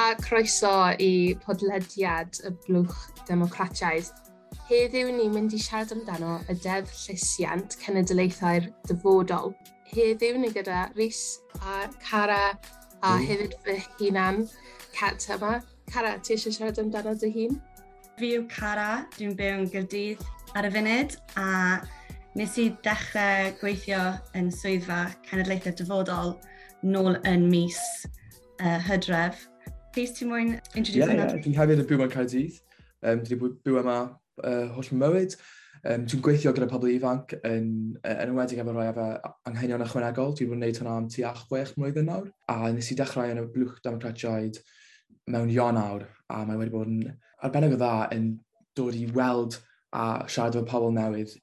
A croeso i podlediad y Blwch Democratiaidd. Heddiw ni'n mynd i siarad amdano y Deddf Llesiant Cenedlaethau'r Dyfodol. Heddiw ni gyda Rhys a Cara a hefyd fy hunan, Cat yma. Cara, ti eisiau siarad amdano dy hun? Fi yw Cara, dwi'n byw yn Gaerdydd ar y funud a nes i dechrau gweithio yn swyddfa Cenedlaethau'r Dyfodol nôl yn mis Hydref. Rhys, ti'n moyn introduce hwnna? Ie, dwi'n hefyd yn byw yn Caerdydd. Dwi wedi byw yma holl mywyd. Dwi'n gweithio gyda pobl ifanc yn enwedig efo rhai efo anghenion ychwanegol. Dwi wedi bod yn gwneud hwnna am tua 6 mlwyddyn nawr. A nes i dechrau yn y Blwch Democratiaid mewn Ionawr, a mae wedi bod yn arbennig o dda yn dod i weld a siarad efo pobl newydd.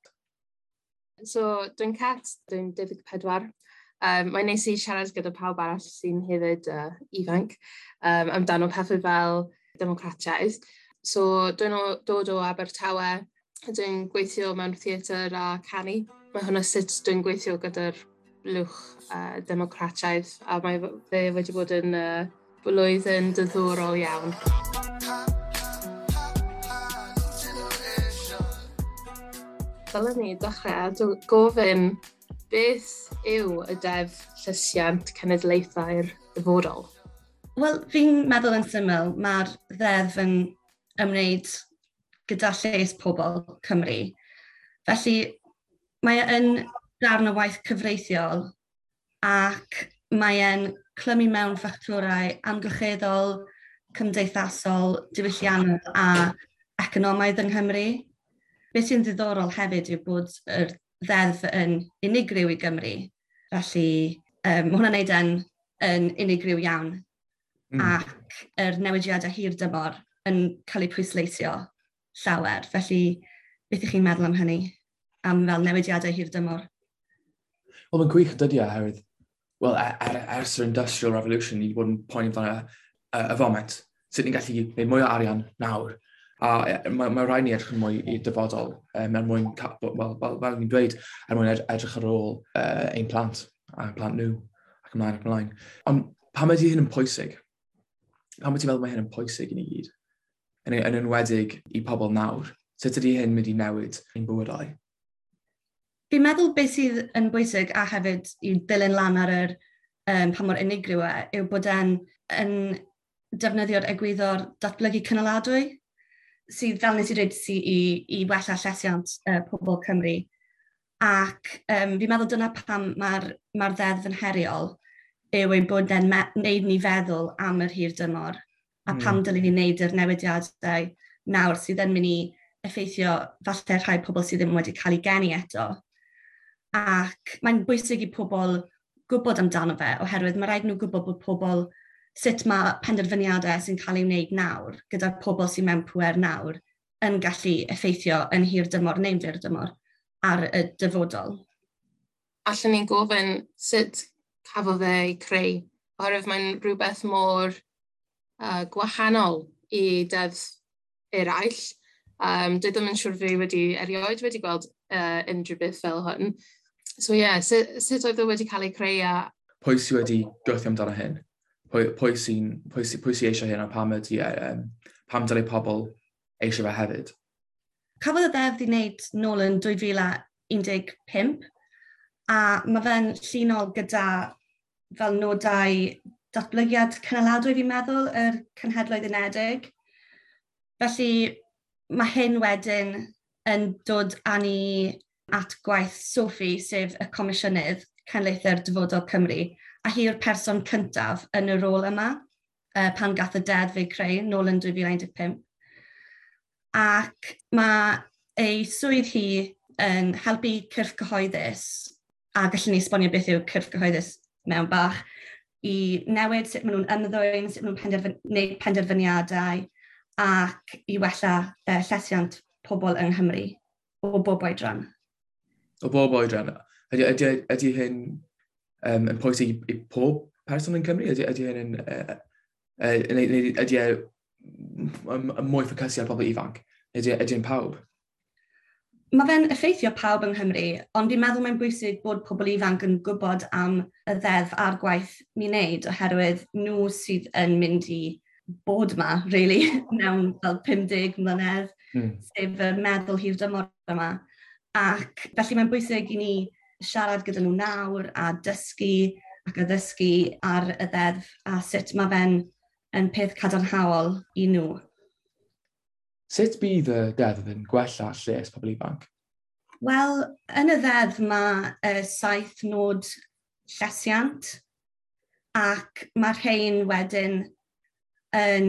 So, dwi'n Cat, dwi'n 24. Mae'n neis i siarad gyda pawb arall sy'n hefyd ifanc amdano pethau fel democratiaeth. So, dwi'n dod o Abertawe, dwi'n gweithio mewn theatr a canu. Mae hwnna sut dwi'n gweithio gyda'r blwch democratiaeth, a mae fe wedi bod yn blwyddyn diddorol iawn. Dylen ni dechrau gofyn beth yw y Deddf Llesiant Cenedlaethau'r Dyfodol? Wel, fi'n meddwl yn syml, mae'r ddeddf yn ymwneud gyda lles pobl Cymru. Felly, mae e yn darn o waith cyfreithiol ac mae e'n clymu mewn ffactorau amgylcheddol, cymdeithasol, diwylliannol a economaidd yng Nghymru. Beth sy'n ddiddorol hefyd yw bod yr ddeddf yn unigryw i Gymru. Felly, mae hwnna'n neud yn unigryw iawn. Ac yr newidiadau hir dymor yn cael eu pwysleisio llawer. Felly, beth ych chi'n meddwl am hynny? Am fel newidiadau hir dymor? Wel, mae'n gwych dydy oherwydd, wel, ers yr Industrial Revolution, ni wedi bod yn poeni amdano y foment. Sut ni'n gallu gwneud mwy o arian nawr. A mae rhaid ni edrych yn mwy i'r dyfodol, er mwyn, wel, fel ni'n dweud, er mwyn edrych ar ôl ein plant, a plant nhw, ac ymlaen ac ymlaen. Ond pam ydy hyn yn pwysig? Pam ydy ti'n meddwl mae hyn yn pwysig i ni gyd? Yn enwedig i pobl nawr. Sut ydy hyn mynd i newid ein bywydau? Fi'n meddwl beth sydd yn bwysig a hefyd i ddilyn lan ar yr pa mor unigryw e, yw bod e'n yn defnyddio'r egwyddor datblygu cynaladwy, sydd, fel nes i dweud, sydd i wella llesiant pobl Cymru. Ac fi'n meddwl dyna pam mae'r ddeddf yn heriol, yw ei bod e'n wneud ni feddwl am yr hir dymor, a pam dylen ni wneud yr newidiadau nawr sydd yn mynd i effeithio falle rhai pobl sydd ddim wedi cael eu geni eto. Ac mae'n bwysig i pobl gwybod amdano fe, oherwydd mae rhaid nhw gwybod bod pobl sut mae penderfyniadau sy'n cael ei wneud nawr, gyda'r pobl sy'n mewn pŵer nawr, yn gallu effeithio yn hir dymor neu'n fyr dymor ar y dyfodol. Allen ni'n gofyn sut cafodd e ei creu, oherwydd mae'n rhywbeth mor gwahanol i deddf eraill. Dwi ddim yn siŵr fi wedi erioed wedi gweld unrhyw beth fel hwn. So ie, yeah, sut oedd e wedi cael ei creu a... Pwy sydd wedi gweithio amdano hyn? Pwy sy eisiau hyn a pam ydy, pam dylai pobl eisiau fe hefyd? Cafodd y ddeddf ei wneud nôl yn 2015 a mae fe'n llinol gyda fel nodau datblygiad cynaladwy fi'n meddwl, yr Cenhedloedd Unedig. Felly mae hyn wedyn yn dod â ni at gwaith Sophie, sef y Comisiynydd Cenedlaethau'r Dyfodol Cymru, a hi yw'r person cyntaf yn y rôl yma, pan gath y deddf ei creu nôl yn 2015. Ac mae ei swydd hi yn helpu cyrff cyhoeddus, a gallwn ni esbonio beth yw cyrff cyhoeddus mewn bach, i newid sut maen nhw'n ymddwyn, sut maen nhw'n gwneud penderfyniadau, ac i wella llesiant pobl yng Nghymru o bob oedran. O bob oedran. Ydy hyn yn pwysig i pob person yn Cymru? Ydy hyn yn, ydy e mwy ffocysu ar pobl ifanc? Ydy e'n pawb? Mae fe'n effeithio pawb yng Nghymru, ond fi'n meddwl mae'n bwysig bod pobl ifanc yn gwybod am y ddeddf a'r gwaith ni'n neud, oherwydd nhw sydd yn mynd i bod yma, really, mewn fel 50 mlynedd, sef y meddwl hir dymor yma. Ac felly mae'n bwysig i ni siarad gyda nhw nawr a dysgu ac addysgu ar y ddeddf a sut mae fe'n yn peth cadarnhaol i nhw. Sut bydd y deddf yn gwella lles pobl ifanc? Wel, yn y ddeddf mae 7 nod llesiant ac mae'r rhain wedyn yn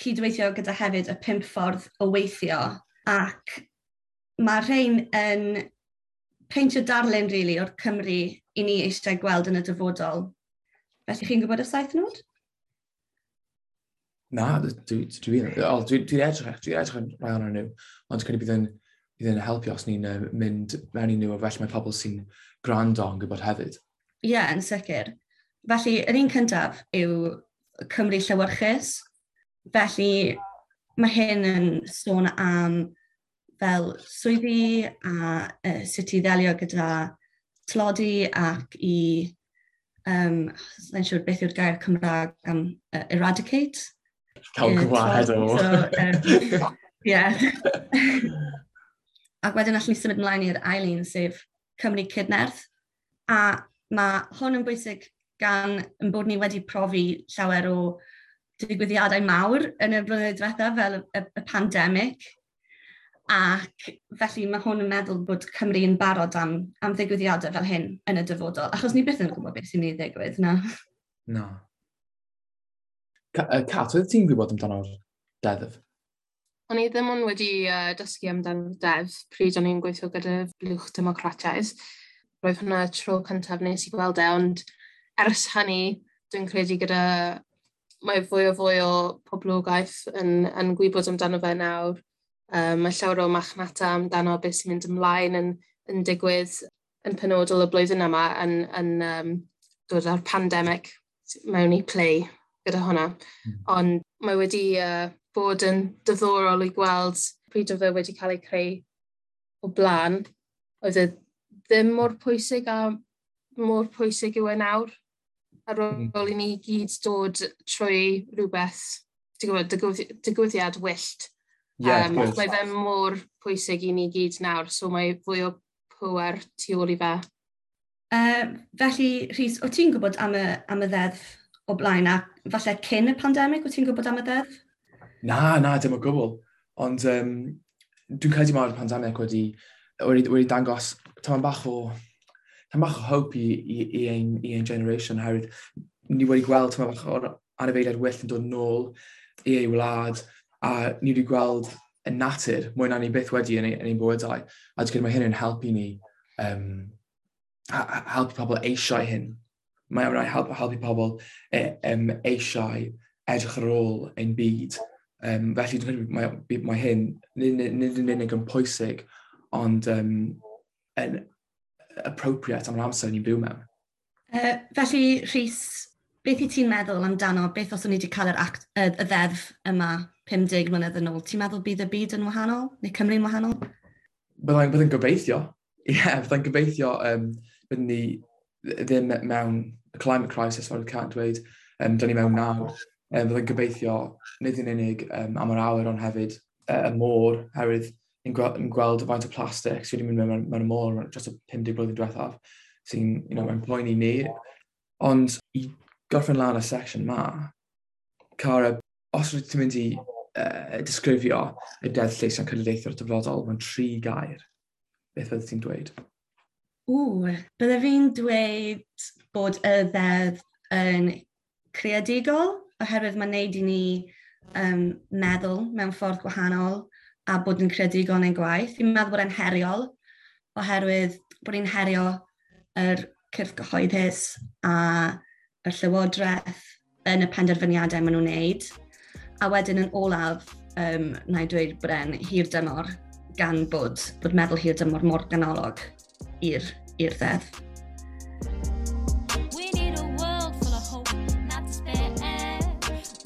cydweithio gyda hefyd y 5 ffordd o weithio, ac mae'r rhain yn peintio darlun, really, o'r Cymru i ni eisiau gweld yn y dyfodol. Felly chi'n gwybod y 7 nod? Na, dwi edrych yn rhai ohonyn nhw, ond credu bydd yn helpu os ni'n mynd mewn i nhw, a felly mae pobl sy'n gwrando yn gwybod hefyd. Ie, yeah, yn sicr. Felly, yr un cyntaf yw Cymru llewyrchus. Felly, mae hyn yn sôn am fel swyddi a sut i ddelio gyda tlodi ac i, sa'n siŵr beth yw'r gair Cymraeg am eradicate. Cael gwared o. So, yeah. Ac wedyn allwn ni symud ymlaen i'r ail un, sef Cymru Cydnerth. A mae hwn yn bwysig gan yn bod ni wedi profi llawer o digwyddiadau mawr yn y blynyddoedd diwethaf fel y pandemig. Ac felly mae hwn yn meddwl bod Cymru yn barod am ddigwyddiadau fel hyn yn y dyfodol. Achos ni byth yn gwybod beth sy'n mynd i ddigwydd, na. Na. Cat, oedd ti'n gwybod amdano'r deddf? O'n i ddim ond wedi dysgu amdano'r deddf pryd o'n i'n gweithio gyda Blwch Democrataidd. Roedd hwnna tro cyntaf nes i gweld e, ond ers hynny, dwi'n credu gyda mae fwy o fwy o poblogaeth yn gwybod amdano fe nawr. Mae llawer o machnata amdano beth sy'n mynd ymlaen yn digwydd yn penodol y blwyddyn yma yn dod â'r pandemig mewn i play gyda hwnna. Ond mae wedi bod yn diddorol i gweld pryd oedd e wedi cael ei creu o blaen. Oedd e ddim mor pwysig a mor pwysig yw e nawr. Ar ôl i ni gyd dod trwy rhywbeth, ti'n gwybod, digwyddiad wyllt. Yeah, mae fe mor pwysig i ni gyd nawr, so mae fwy o pwer tu ôl i fe. Felly, Rhys, o ti'n gwybod am y ddeddf o blaen, a falle cyn y pandemig, o ti'n gwybod am y ddeddf? Na, dim o gwbl. Ond dwi'n credu mae'r pandemig wedi dangos tamed bach o hope i ein generation, oherwydd ni wedi gweld tamed bach o'r anifeiliaid wyllt yn dod nôl i ei wlad, a ni wedi gweld y natur mwy na ni byth wedi yn ein bywydau. A dwi'n credu mae hyn yn helpu ni, helpu pobl eisiau hyn. Mae'n rhaid helpu pobl eisiau edrych ar ôl ein byd. Felly dwi'n credu mae hyn nid yn unig yn pwysig, ond yn appropriate am yr amser ni'n byw mewn. Felly, Rhys, beth i ti'n meddwl amdano, beth os o'n i wedi cael yr act, y ddeddf yma 50 mlynedd yn ôl? Ti'n meddwl bydd y byd yn wahanol, neu Cymru'n wahanol? Byddai'n gobeithio. Ie, yeah, byddai'n gobeithio byddwn ni ddim mewn y climate crisis, fel Cat dweud, dyn ni mewn nawr. Byddai'n gobeithio nid yn unig am yr awyr, ond hefyd y môr, herwydd ni'n gweld faint o plastig sydd wedi mynd mewn y môr dros y 50 blwyddyn diwethaf, sy'n mae'n poeni ni. Ond i gorffen lan y section ma, Cara, os rydych ti'n mynd i disgrifio y Deddf Llesiant Cenedlaethol Dyfodol mewn tri gair, beth fyddet ti'n dweud? Ww, bydde fi'n dweud bod y ddeddf yn creadigol, oherwydd mae'n neud i ni meddwl mewn ffordd gwahanol a bod yn creadigol yn ein gwaith. Fi'n meddwl bod e'n heriol, oherwydd bod ni'n herio yr cyrff gyhoeddus a y llywodraeth yn y penderfyniadau maen nhw'n neud. A wedyn yn olaf, na i dweud bod e'n hir dymor, gan bod meddwl hir dymor mor ganolog i'r ddeddf. We need a world full of hope, not despair,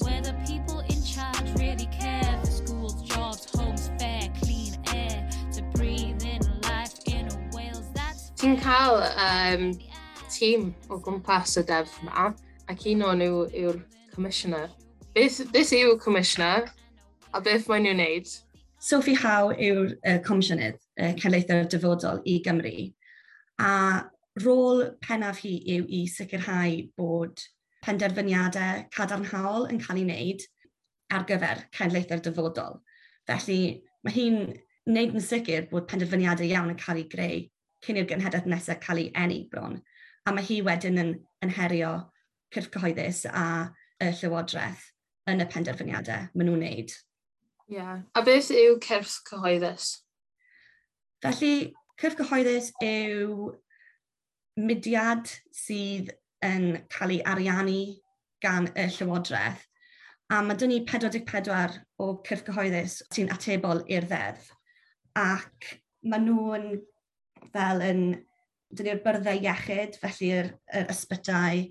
where the people in charge really care for schools, jobs, homes, fair, clean air, to breathe in life in a Wales that's Ti'n cael tîm o gwmpas y deddf yma, ac un o'n nhw yw'r commissioner. Beth yw Commissioner a beth maen nhw'n wneud? Sophie Howe yw'r Comisiynydd Cenedlaethau'r Dyfodol i Gymru. A rôl pennaf hi yw i sicrhau bod penderfyniadau cadarnhaol yn cael ei wneud ar gyfer cenedlaethau'r dyfodol. Felly mae hi'n wneud yn sicr bod penderfyniadau iawn yn cael ei greu cyn i'r genhedlaeth nesaf cael ei eni bron. A mae hi wedyn yn herio cyrff cyhoeddus a y Llywodraeth yn y penderfyniadau maen nhw'n wneud. Yeah. A beth yw cyrff cyhoeddus? Felly, cyrff cyhoeddus yw mudiad sydd yn cael ei ariannu gan y Llywodraeth. A mae dyn ni 44 o cyrff cyhoeddus sy'n atebol i'r ddeddf. Ac maen nhw'n fel yn, dyn ni'r byrddau iechyd, felly'r ysbytai,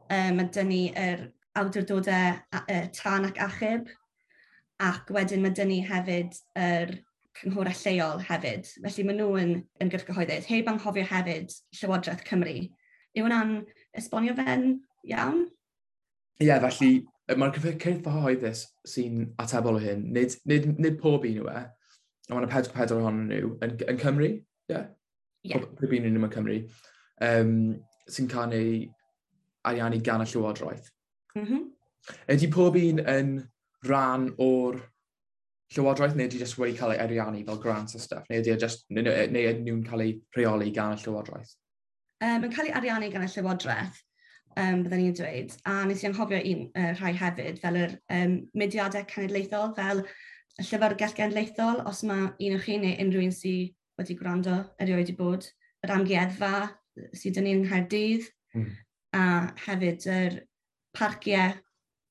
mae dyn ni yr awdurdodau tân ac achub, ac wedyn mae dyn ni hefyd yr cynghorau lleol hefyd. Felly maen nhw yn gyrff cyhoeddus. Heb anghofio hefyd Llywodraeth Cymru. Yw hwnna'n esbonio fe'n iawn? Ie, yeah, felly mae'r cyrff cyhoeddus sy'n atebol o hyn, nid pob un yw e, ond mae'n 44 ohonyn nhw yn Cymru, ie? Yeah? Yeah. Pob un nhw yn Cymru, sy'n cael ei ariannu gan y Llywodraeth. Mm -hmm. Ydy pob un yn rhan o'r Llywodraeth, neu ydy jyst wedi cael ei ariannu fel grants a stuff, neu ydy just, neu ydyn nhw'n cael ei rheoli gan y Llywodraeth? Mae'n cael ei ariannu gan y Llywodraeth, byddwn ni'n dweud. A nes i anghofio un rhai hefyd, fel yr mudiadau cenedlaethol, fel y Llyfrgell Genedlaethol, os mae un o chi neu unrhyw un sydd wedi gwrando erioed i bod, yr amgueddfa sydd dyn ni yng Nghaerdydd, a hefyd yr parciau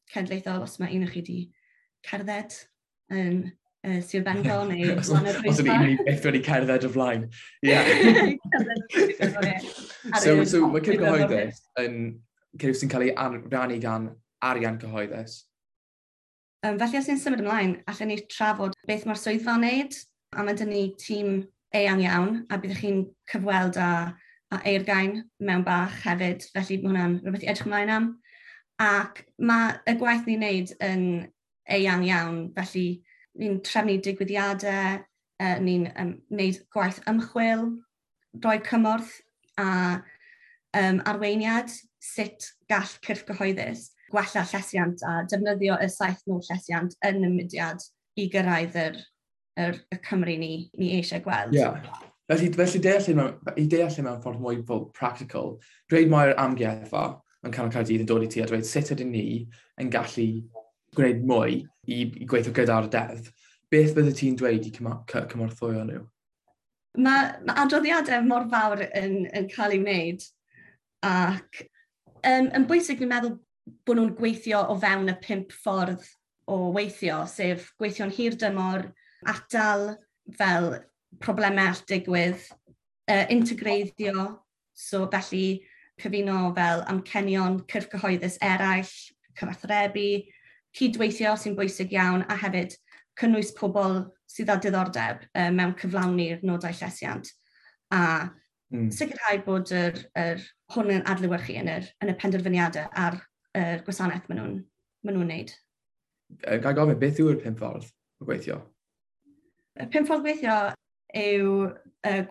cenedlaethol, os mae un o chi wedi cerdded yn Sir Benfro neu Os ydy un byth wedi cerdded o flaen. Yeah. So mae cyrff cyhoeddus yn cyrff sy'n cael ei rannu gan arian cyhoeddus. Felly os ni'n symud ymlaen, allan ni trafod beth mae'r swyddfa'n wneud, a mae dyn ni tîm eang iawn, a byddwch chi'n cyfweld â Eurgain mewn bach hefyd, felly mae hwnna'n rhywbeth i edrych ymlaen am. Ac mae y gwaith ni'n wneud yn eang iawn, felly ni'n trefnu digwyddiadau, ni'n wneud gwaith ymchwil, rhoi cymorth a arweiniad sut gall cyrff cyhoeddus gwella llesiant a defnyddio y 7 nod llesiant yn y mudiad i gyrraedd y Cymru ni eisiau gweld. Yeah. Felly i deall mewn ffordd mwy fel practical, dweud mae'r amgueddfa yn canol Caerdydd yn dod i ti a dweud sut ydyn ni yn gallu gwneud mwy i gweithio gyda'r deddf, beth bydde ti'n dweud i cymorthwyo nhw? Mae adroddiadau mor fawr yn cael ei wneud, ac yn bwysig ni'n meddwl bod nhw'n gweithio o fewn y 5 ffordd o weithio, sef gweithio'n hir dymor, atal fel problemau all digwydd, integreiddio, so felly cyfuno fel amcenion cyrff cyhoeddus eraill, cyfathrebu, cydweithio sy'n bwysig iawn, a hefyd cynnwys pobl sydd â diddordeb mewn cyflawni'r nodau llesiant. A sicrhau bod yr hwn yn adlewyrchu yn y penderfyniadau a'r gwasanaeth maen nhw'n wneud. Ga i gofyn, beth yw'r 5 ffordd o gweithio? Y 5 ffordd gweithio yw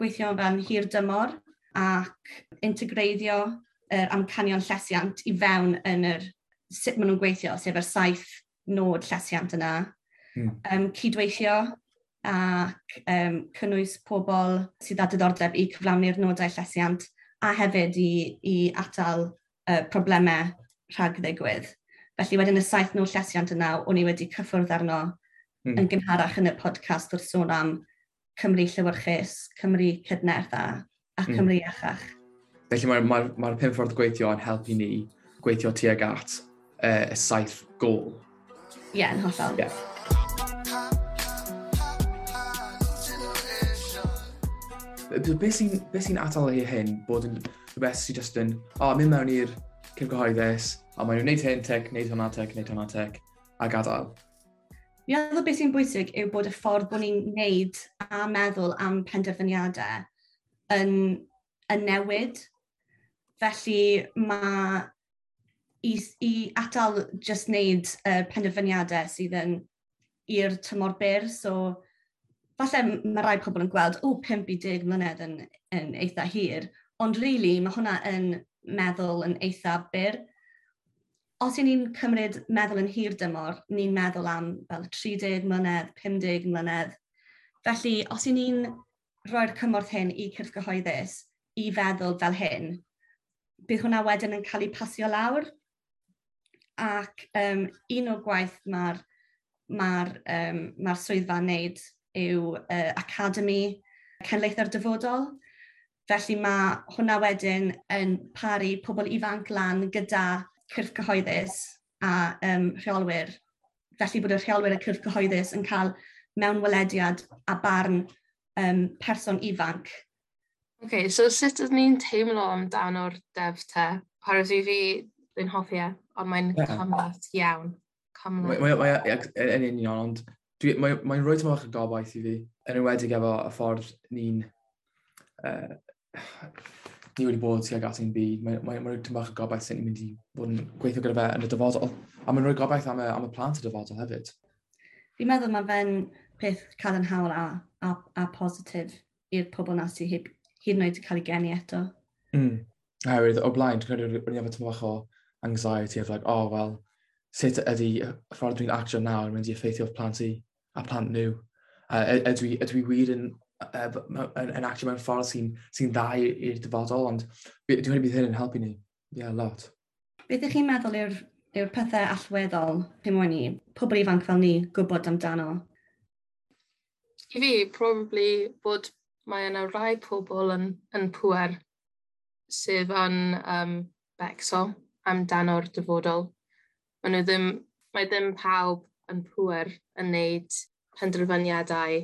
gweithio fel hir dymor ac integreiddio yr amcanion llesiant i fewn yn yr sut maen nhw'n gweithio, sef yr 7 nod llesiant yna. Cydweithio ac cynnwys pobl sydd â diddordeb i cyflawni'r nodau llesiant a hefyd i atal problemau rhag ddigwydd. Felly wedyn y 7 nod llesiant yna, o'n i wedi cyffwrdd arno yn gynharach yn y podcast wrth sôn am Cymru llewyrchus, Cymru cydnerth a Cymru iachach. Felly mae'r 5 ffordd gweithio yn helpu ni gweithio tuag at y 7 gôl. Ie, yn hollol. Yeah. Beth sy'n atal i hyn bod yn rhywbeth sy'n just yn, mynd mewn i'r cyrff cyhoeddus, a maen nhw'n gwneud hyn tic, gwneud hwnna tic, gwneud hwnna tic, a gadael. Fi'n meddwl beth sy'n bwysig yw bod y ffordd bod ni'n gwneud a meddwl am penderfyniadau yn newid. Felly mae I atal just wneud penderfyniadau sydd yn i'r tymor byr. So, falle mae rai pobl yn gweld, o, 5 i 10 mlynedd yn eitha hir, ond really, mae hwnna yn meddwl yn eitha byr. Os y'n ni'n cymryd meddwl yn hir dymor, ni'n meddwl am fel 30 mlynedd, 50 mlynedd. Felly, os y'n ni'n rhoi'r cymorth hyn i cyrff gyhoeddus i feddwl fel hyn, bydd hwnna wedyn yn cael ei pasio lawr. Ac un o'r gwaith mae'r ma swyddfa'n wneud yw Academy Cenedlaethau'r Dyfodol. Felly mae hwnna wedyn yn paru pobl ifanc lan gyda cyrff cyhoeddus a rheolwyr. Felly bod y rheolwyr y cyrff cyhoeddus yn cael mewnwelediad a barn person ifanc. OK, so sut ydyn ni'n teimlo amdano'r deddf te? Oherwydd i fi, dwi'n hoffi e, ond mae'n cymhleth iawn. Cymhleth. Mae yn union, ond mae'n rhoi tymor bach o gobaith i fi, yn enwedig efo y ffordd ni wedi bod tuag at ein byd. Mae rhoi tymor bach o gobaith sy'n ni'n mynd i fod yn gweithio gyda fe yn y dyfodol. A mae'n rhoi gobaith am y plant y dyfodol hefyd. Fi'n meddwl mae fe'n peth cadarnhaol a positif i'r pobl na sydd hyd yn oed wedi cael ei geni eto. Oherwydd, o blaen, dwi'n credu o'n i efo tymor bach o anxiety of like, oh, well, sut ydy y ffordd dwi'n actio nawr yn mynd i effeithio plant i a plant nhw? Ydw i wir yn actio mewn ffordd sy dda i'r dyfodol, ond dwi'n credu bydd hyn yn helpu ni. Yeah, a lot. Beth ydych chi'n meddwl yw'r pethau allweddol chi moyn i pobl ifanc fel ni gwybod amdano? I fi, probably bod mae yna rai pobl yn pŵer sydd yn becso amdano'r dyfodol. Maen nhw ddim, mae ddim pawb yn pŵer yn wneud penderfyniadau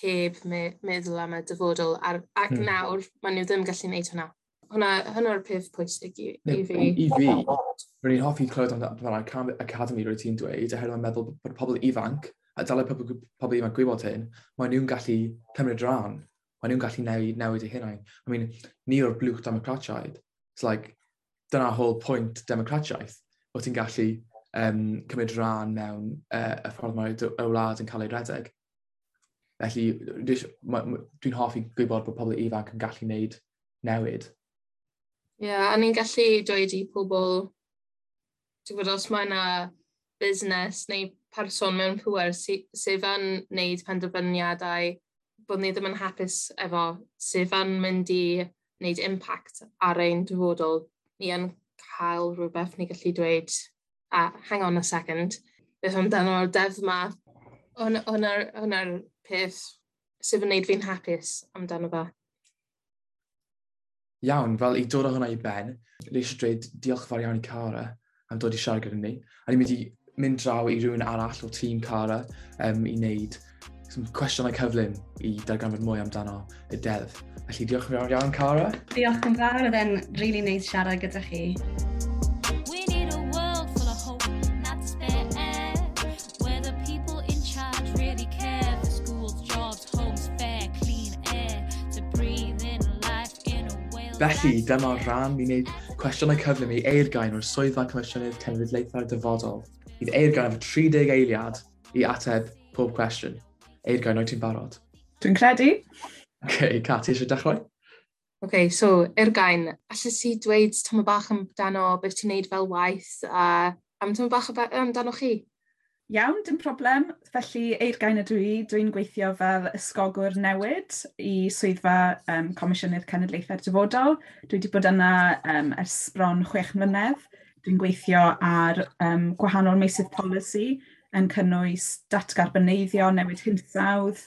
heb meddwl am y dyfodol. Ac nawr, maen nhw ddim gallu gwneud hwnna. Hwnna'r peth pwysig i fi. I fi, rwy'n i'n hoffi clywed amdano'r Academy rwy ti'n dweud, oherwydd mae'n meddwl bod pobl ifanc, a dylai pobl ifanc gwybod hyn, mae nhw'n gallu cymryd rhan. Mae nhw'n gallu newid eu hunain. I mean, ni o'r blwch democratiaid. It's like, dyna whole point democratiaeth, bod ti'n gallu cymryd rhan mewn y ffordd mae y wlad yn cael ei redeg. Felly, dwi'n hoffi gwybod bod pobl ifanc yn gallu gwneud newid. Ie, yeah, a ni'n gallu dweud i pobl, ti'n gwybod, os mae yna busnes neu person mewn pŵer sydd yn wneud penderfyniadau bod ni ddim yn hapus efo, sydd yn mynd i wneud impact ar ein dyfodol, ni yn cael rhywbeth ni gallu dweud, "A hang on a second, beth amdano'r deddf yma?" Hwnna'r peth sydd yn wneud fi'n hapus amdano fe. Iawn, fel i dod â hwnna i ben, ni eisiau dweud diolch fawr iawn i Cara am dod i siarad gyda ni. A ni'n mynd i mynd draw i rhywun arall o tîm Cara i wneud some cwestiynau cyflym i darganfod mwy amdano y deddf. Felly diolch yn fawr iawn, Cara. Diolch yn fawr, oedd e'n really neis siarad gyda chi. We need a world full of hope, not despair, where the people in charge really care for schools, jobs, homes, fair, clean air, to breathe in life in a whale. Felly, dyma'r rhan ni'n gwneud cwestiynau cyflym i Eurgain o'r Swyddfa Comisiynydd Cenedlaethau'r Dyfodol. Bydd Eurgain efo 30 eiliad i ateb pob cwestiwn. Eurgain, wyt ti'n barod? Dwi'n credu. OK, Kat, ti eisiau dechrau? OK, so, Eurgain, allet ti dweud tamaid bach amdano beth ti'n neud fel waith a am tamaid bach amdano chi? Iawn, dim problem. Felly, Eurgain ydw i. Dwi'n gweithio fel ysgogwr newid i swyddfa Comisiynydd Cenedlaethau'r Dyfodol. Dwi wedi bod yna ers bron 6 mlynedd. Dwi'n gweithio ar gwahanol meysydd polisi yn cynnwys datgarboneiddio, newid hinsawdd,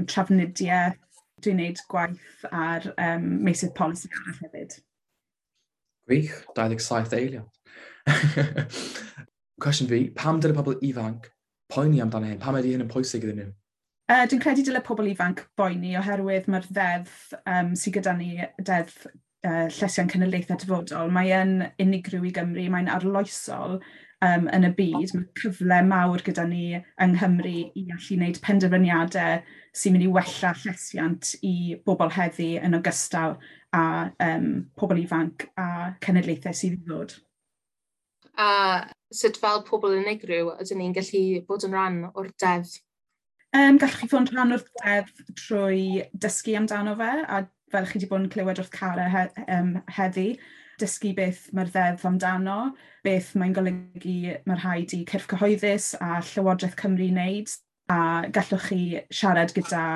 trafnidiaeth. Dwi'n gwneud gwaith ar meysydd polisi arall hefyd. Gwych, 27 eiliad. Cwestiwn fi, pam dyle pobl ifanc poeni amdano hyn? Pam ydy hyn yn pwysig iddyn nhw? Dwi'n credu dyle pobl ifanc boeni oherwydd mae'r ddeddf sydd gyda ni, Deddf Llesiant Cenedlaethau Dyfodol, mae yn unigryw i Gymru, mae'n arloesol yn y byd. Mae cyfle mawr gyda ni yng Nghymru i allu wneud penderfyniadau sy'n mynd i wella llesiant i bobl heddi yn ogystal â pobl ifanc a cenedlaethau sydd i ddod. A sut fel pobl unigryw ydyn ni'n gallu bod yn rhan o'r deddf? Gallwch chi fod yn rhan o'r deddf trwy dysgu amdano fe, a fel chi wedi bod yn clywed wrth Cara heddi, dysgu beth mae'r ddeddf amdano, beth mae'n golygu mae rhaid i cyrff cyhoeddus a Llywodraeth Cymru wneud, a gallwch chi siarad gyda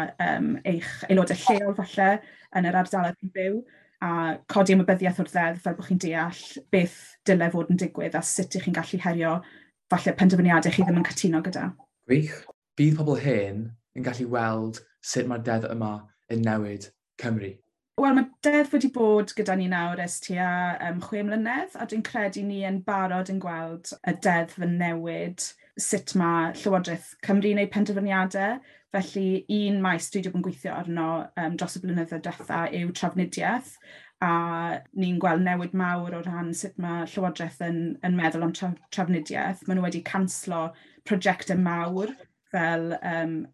eich aelodau lleol falle yn yr ardaloedd chi'n byw, a codi ymwybyddiaeth o'r ddeddf fel bod chi'n deall beth dylai fod yn digwydd a sut ych chi'n gallu herio falle penderfyniadau chi ddim yn cytuno gyda. Gwych. Bydd pobl hyn yn gallu weld sut mae'r deddf yma yn newid Cymru. Wel, mae deddf wedi bod gyda ni nawr ers tua 6 mlynedd, a dwi'n credu ni yn barod yn gweld y deddf yn newid sut mae Llywodraeth Cymru yn gwneud penderfyniadau. Felly, un maes dwi wedi bod yn gweithio arno dros y blynyddoedd diwetha yw trafnidiaeth, a ni'n gweld newid mawr o ran sut mae Llywodraeth yn meddwl am trafnidiaeth. Maen nhw wedi canslo prosiectau mawr fel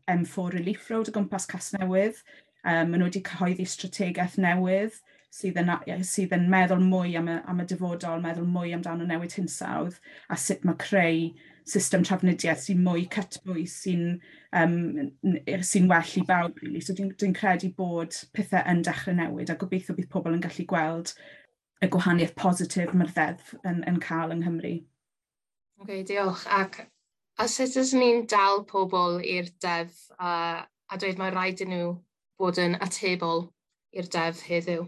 M4 Relief Road o gwmpas Casnewydd. Maen nhw wedi cyhoeddi strategaeth newydd sydd yn meddwl mwy am y dyfodol, meddwl mwy amdano newid hinsawdd a sut mae creu system trafnidiaeth sy'n mwy cytbwys, sy'n well i bawb. Really. So dwi'n credu bod pethau yn dechrau newid a gobeithio bydd pobl yn gallu gweld y gwahaniaeth positif mae'r ddeddf yn cael yng Nghymru. OK, diolch. Ac a sut ydyn ni'n dal pobl i'r deddf a dweud mae rhaid i nhw bod yn atebol i'r deddf heddiw?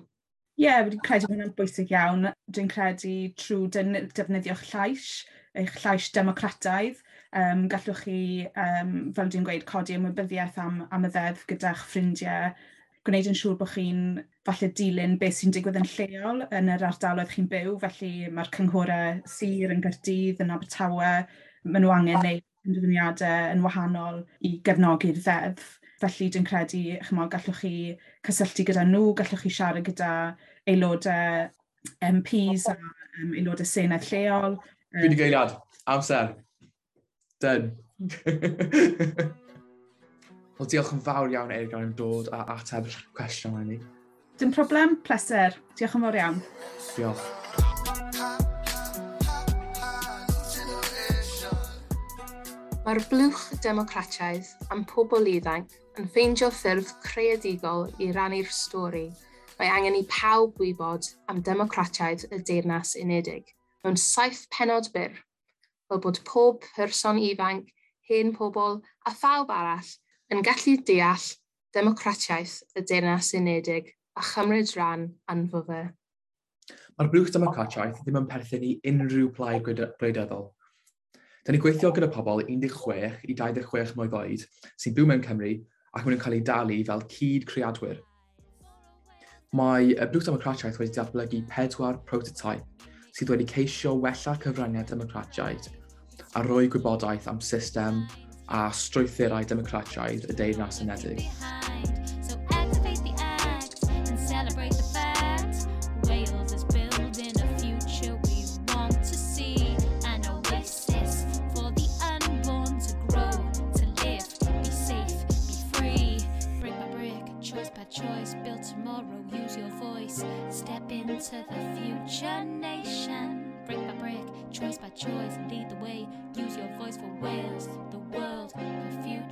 Ie, yeah, dwi'n credu bod hwnna'n bwysig iawn. Dwi'n credu trwy defnyddio'ch llais, eich llais democrataidd. Gallwch chi, fel dwi'n gweud, codi ymwybyddiaeth am y ddeddf gyda'ch ffrindiau, gwneud yn siŵr bod chi'n falle dilyn beth sy'n digwydd yn lleol yn yr ardaloedd chi'n byw. Felly mae'r cynghorau sir yn Gaerdydd, yn Abertawe, maen nhw angen gwneud penderfyniadau yn wahanol i gefnogi'r ddeddf. Felly dwi'n credu, chimod, gallwch chi cysylltu gyda nhw, gallwch chi siarad gyda aelodau MPs a aelodau Senedd lleol. Dwi wedi geiriad. Amser. Done. Wel, diolch yn fawr iawn, Eurgain, am dod a ateb cwestiwn i ni. Dim problem, pleser. Diolch yn fawr iawn. Diolch. Mae'r blwch democrataidd am pobl ifanc yn ffeindio ffyrdd creadigol i rannu'r stori. Mae angen i pawb wybod am democratiaid y Deyrnas Unedig mewn 7 pennod byr, fel bod pob person ifanc, hen pobl a phawb arall yn gallu deall democratiaeth y Deyrnas Unedig a chymryd rhan ynddo fe. Mae'r blwch democratiaeth ddim yn perthyn i unrhyw plaid gwleidyddol. Da ni'n gweithio gyda pobl 16 i 26 mlwydd oed sy'n byw mewn Cymru ac maen nhw'n cael eu dalu fel cyd-creadwyr. Mae y Blwch Democratiaeth wedi datblygu 4 prototype sydd wedi ceisio wella cyfraniad democratiaid a rhoi gwybodaeth am system a strwythurau democratiaid y Deyrnas Unedig. To the future nation, brick by brick, choice by choice, lead the way, use your voice for Wales, the world, the future.